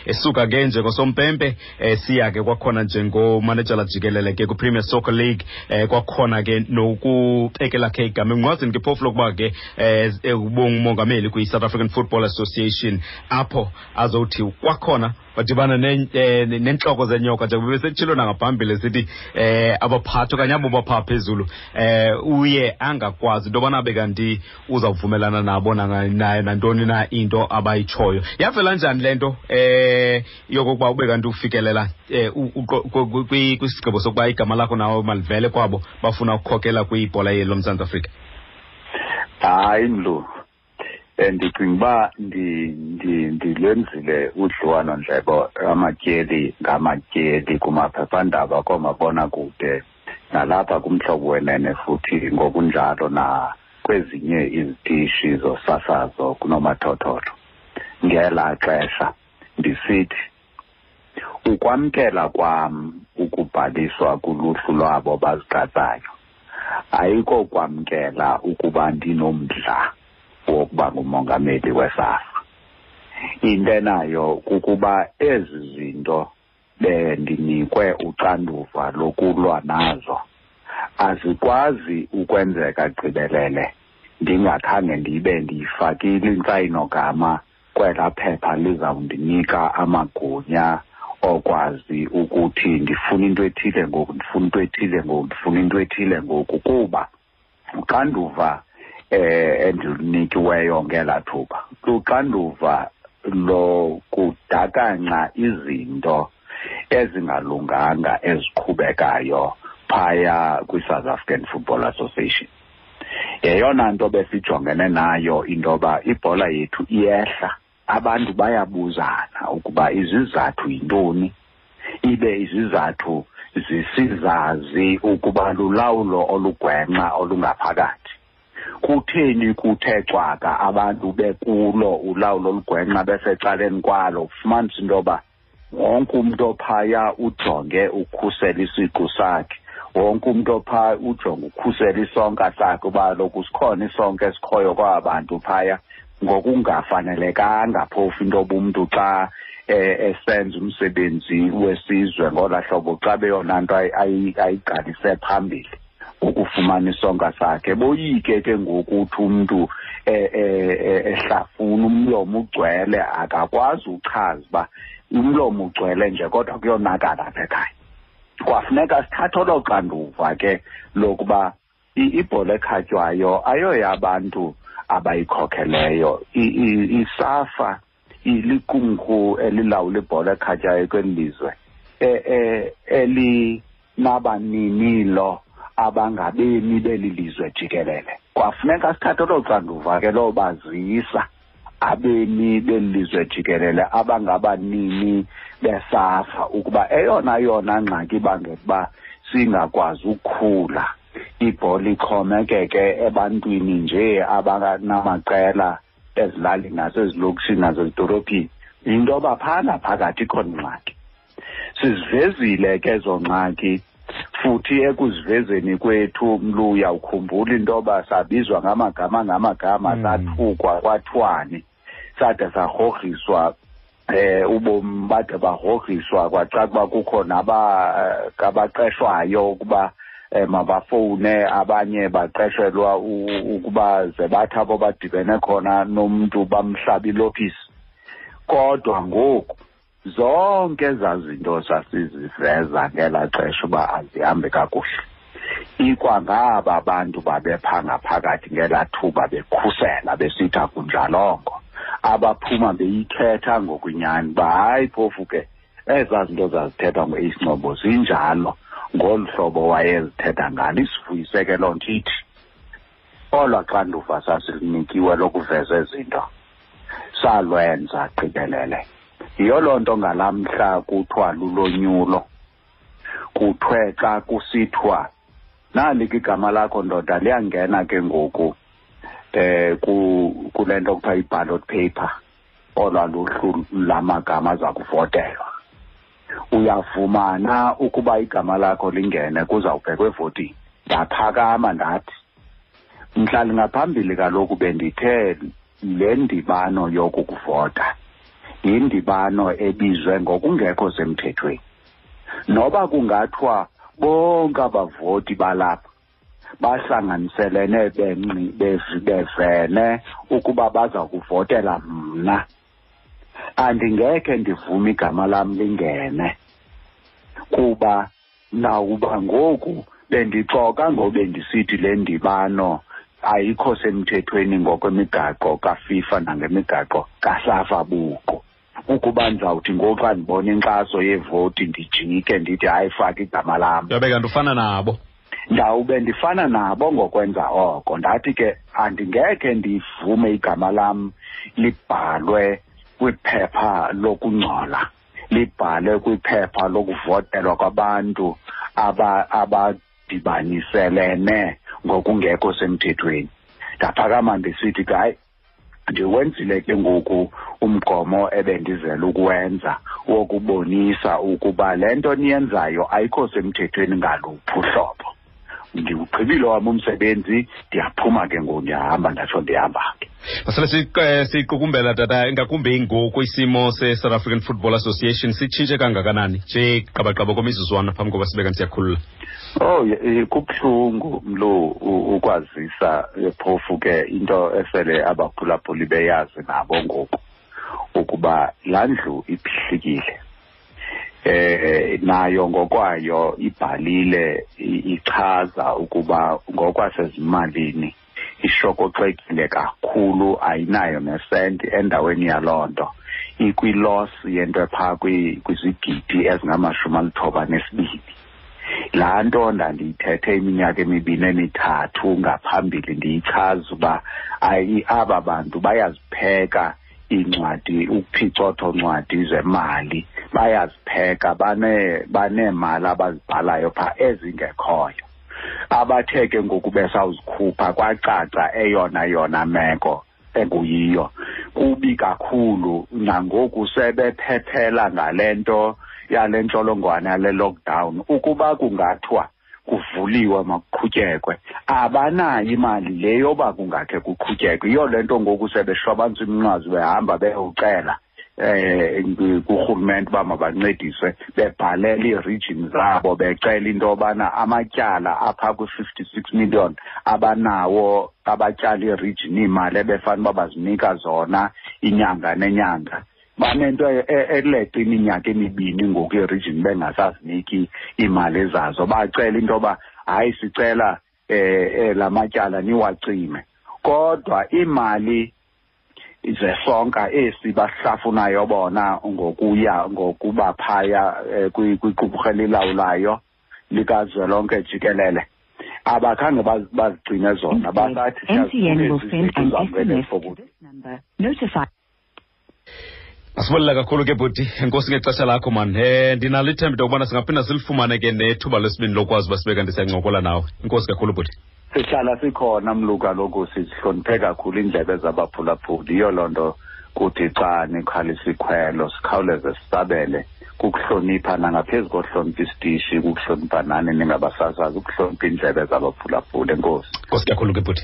Esuka ke njengosompempe siya ke kwakhona njengomanejala jikelele ke kwiPremier Soccer League, kwakhona ke nokubekela khe igama emnqwazini ke phofu lokuba ke ubungumongameli kwi-South African Football Association, apho azothi kwakhona badibana nentloko zenyoka njengoba besetshilo nangaphambili sithi abaphathi okanye abo baphaa phezulu uye angakwazi into yobana abe kanti uzawuvumelana nabo naye nantoni na into abayitshoyo. Yavela njani le nto yokokuba ube kanti ufikelela kwisigqibo sokuba igama lakho nawe malivele kwabo bafuna ukukhokela kwibhola yeli loMzantsi Afrika? Hayi mlu, ndicinga uba ndilwenzile udliwano-ndlebe amatyeli ngamatyeli kumaphephandaba, koomabonakude, nalapha kuMhlobo Wenene, futhi ngokunjalo nakwezinye izitishi zosasazo kunomathotholo ngelaa xesha, ndisithi ukwamkela kwam ukubhaliswa kuluhlu lwabo bazigqatsayo ayikokwamkela ukuba ndinomdla wokuba ngumongameli weSAFA. Into enayo kukuba ezi zinto bendinikwe uxanduva lokulwa nazo azikwazi ukwenzeka gqibelele ndingakhange ndibe ndiyifakile intsayinogama kwelaa phepha lizawundinika amagunya okwazi ukuthi ndifuna into ethile ngoku, ndifuna into ethile ngoku, ndifuna into ethile ngoku, kuba uxanduva endilunikiweyo ngelaa thuba luxanduva lokudakanca izinto ezingalunganga eziqhubekayo phaya kwi-South African Football Association. Yeyona nto besijongene nayo into yoba ibhola yethu iyehla, abantu bayabuzana ukuba izizathu yintoni, ibe izizathu zisizazi ukuba lulawulo olugwenxa olungaphakathi. Kutheni kuthe cwaka abantu bekulo ulawulo olugwenxa besecaleni kwalo? Ufumanisa into yoba wonke umntu ophaya ujonge ukhusela isiqu sakhe, wonke umntu ophaya ujonge ukhusela isonka sakhe, uba kaloku sikhona isonka esikhoyo kwaba bantu phaya, ngokungafanelekanga phofu into yoba umntu xa esenza umsebenzi wesizwe ngolaa hlobo, xa beyona nto ayigqalise phambili ukufumana isonka sakhe. Boyike ke ngoku uthi umntu ehlafuna umlomo ugcwele, akakwazi uchaza uba umlomo ugcwele nje kodwa kuyonakala apha ekhaya. Kwafuneka sithathe olo xanduva ke lokuba ibhola ekhatywayo ayoyabantu abayikhokheleyo. ISAFA iliqumrhu elilawula ibhola ekhatywayo kweli lizwe, elinabaninilo abangabemi beli lizwe jikelele. Kwafuneka sithathe olo xanduva ke lobazisa abemi beli lizwe jikelele abangabanini beSAFA ukuba eyona yona ngxaki ibangela uba singakwazi ukukhula, ibhola ixhomekeke ebantwini nje abanamaqela ezilalini nasezilokishini nasezidolophini, yinto yoba phana phakathi ikhona ingxaki. Sizivezile ke ezo ngxaki, futhi ekuzivezeni kwethu mlu uyawukhumbula into yoba sabizwa ngamagama ngamagama, sathukwa kwathiwani, sade sarhorhiswa ubomi bade barhorhiswa, kwacaca uba kukho nabaqeshwayo ukuba mabafowune, abanye baqeshelwa ukuba ze bathi abo badibene khona nomntu bamhlabe ilokisi. Kodwa ngoku zonke ezaa zinto sasiziveza ngelaa xesha uba azihambi kakuhle, ikwangaba bantu babepha ngaphakathi ngelaa thuba bekhusela besithi akunjalongo, abaphuma beyithetha ngokunyani uba hayi phofu ke ezaa zinto zazithethwa ngu-Ace Ncobo zinjalo ngolu hlobo wayezithetha ngalo. Isivuyise ke loo nto, ithi olwaa xanduva sasilunikiwe lokuveza ezi zinto salwenza gqibelele. Yiyo loo nto ngalaa mhla kuthiwa lulonyulo, kuthiwe xa kusithiwa nali ke igama lakho ndoda liyangena ke ngoku kule nto kuthiwa i-ballot paper, olwaa luhlu lamagama aza kuvotelwa. Uyavumana ukuba igama lakho lingene kuzawubhekwa evotini. Ndaphakama ndathi mhla ngaphambili kaloku bendithe le ndibano yokukuvota Yindibano ebizwe ngokungekho semthethweni. Noba kungathiwa bonke abavoti balapha bahlanganiselene bevene ukuba baza kuvotela mna, andingekhe ndivume igama lam lingene, kuba nawuba ngoku bendixoka ngobe ndisithi le ndibano ayikho semthethweni ngokwemigaqo kaFIFA nangemigaqo kaSAFA buqu. Ukuba ndizawuthi ngoku xa ndibona inkxaso yevoti ndijike ndithi hayi, faka igama lam, Yabe kanti ufana nabo. Ndawube ndifana nabo ngokwenza oko. Ndathi ke andingekhe ndivume igama lam libhalwe kwiphepha lokungcola, libhalwe kwiphepha lokuvotelwa kwabantu abadibaniselene ngokungekho semthethweni. Ndaphakama ndisithi ke hayi, ndiwenzile ke ngoku umgomo ebendizele ukuwenza wokubonisa ukuba le nto niyenzayo ayikho semthethweni ngaluphi uhlobo. Ndiwugqibile wam umsebenzi, ndiyaphuma ke ngoku, ndiyahamba, ndatsho ndihamba ke. Masele siqukumbela tata, ingakumbi ngoku isimo se-South African Football Association sitshintshe kangakanani nje qabaqaba komizuzwana phambi koba sibe kanti siyakhulula? Oh, kubuhlungu mlo ukwazisa, phofu ke into esele abaphulaphuli beyazi nabo ngoku ukuba laa ndlu iphihlikile. Nayo ngokwayo ibhalile ichaza ukuba ngokwasezimalini ishokoxekile kakhulu, ayinayo nesenti endaweni yaloo nto. Ikwi-loss yento ephaa kwizigidi ezingama-92. Laa nto ndandiyithethe iminyaka emibini emithathu ngaphambili ndiyichaza uba aba bantu bayazipheka iincwadi, ukuphicotho ncwadi zemali, bayazipheka, baneemali abazibhalayo phaa ezingekhoyo. Abathe ke ngoku besawuzikhupha kwacaca eyona yona meko enguyiyo. Kubi kakhulu nangoku sebephephela ngale nto yale ntsholongwane yale lockdown. Ukuba kungathiwa kuvuliwe makuqhutyekwe, abanayo imali le yoba kungakhe kuqhutyekwe. Yiyo le nto ngoku sebeshwabantsa iminqwazi behamba beyocela kurhulumente uba mabancediswe, bebhalela ii-region zabo becela into yobana amatyala apha kwi-56 million abanawo, abatyala ii-region iimali ebefana uba bazinika zona inyanga nenyanga. Banento eleqa iminyaka emibini ngoku ii-region bengasaziniki iimali zazo. Bacela into yoba hayi, sicela la matyala niwacime, kodwa iimali zesonka esi bahlafunayo bona ngokuya ngokuba phaya kwiqumrhu elilawulayo likazwelonke jikelele, abakhange bazigcine zona. Basathi MTN will send an siyazifuna SMS to this number. Notify. Asibulela kakhulu ke bhuti, enkosi ngexesha lakho man. Ndinalo ithemba into yokubana singaphinda silifumane ke nethuba lesibini lokwazi uba sibe kanti siyancokola nawe. Enkosi kakhulu bhuti. Sihlala sikhona mlu, kaloku sizihloniphe kakhulu iindlebe zabaphulaphuli. Yiyo loo nto kuthi xa nikhalisa ikhwelo sikhawuleze sisabele, kukuhlonipha nangaphezu kohlonipha isitishi, kukuhlonipha nani ningabasasazi, ukuhlonipha iindlebe zabaphulaphuli. Enkosi. Enkosi kakhulu ke bhuti.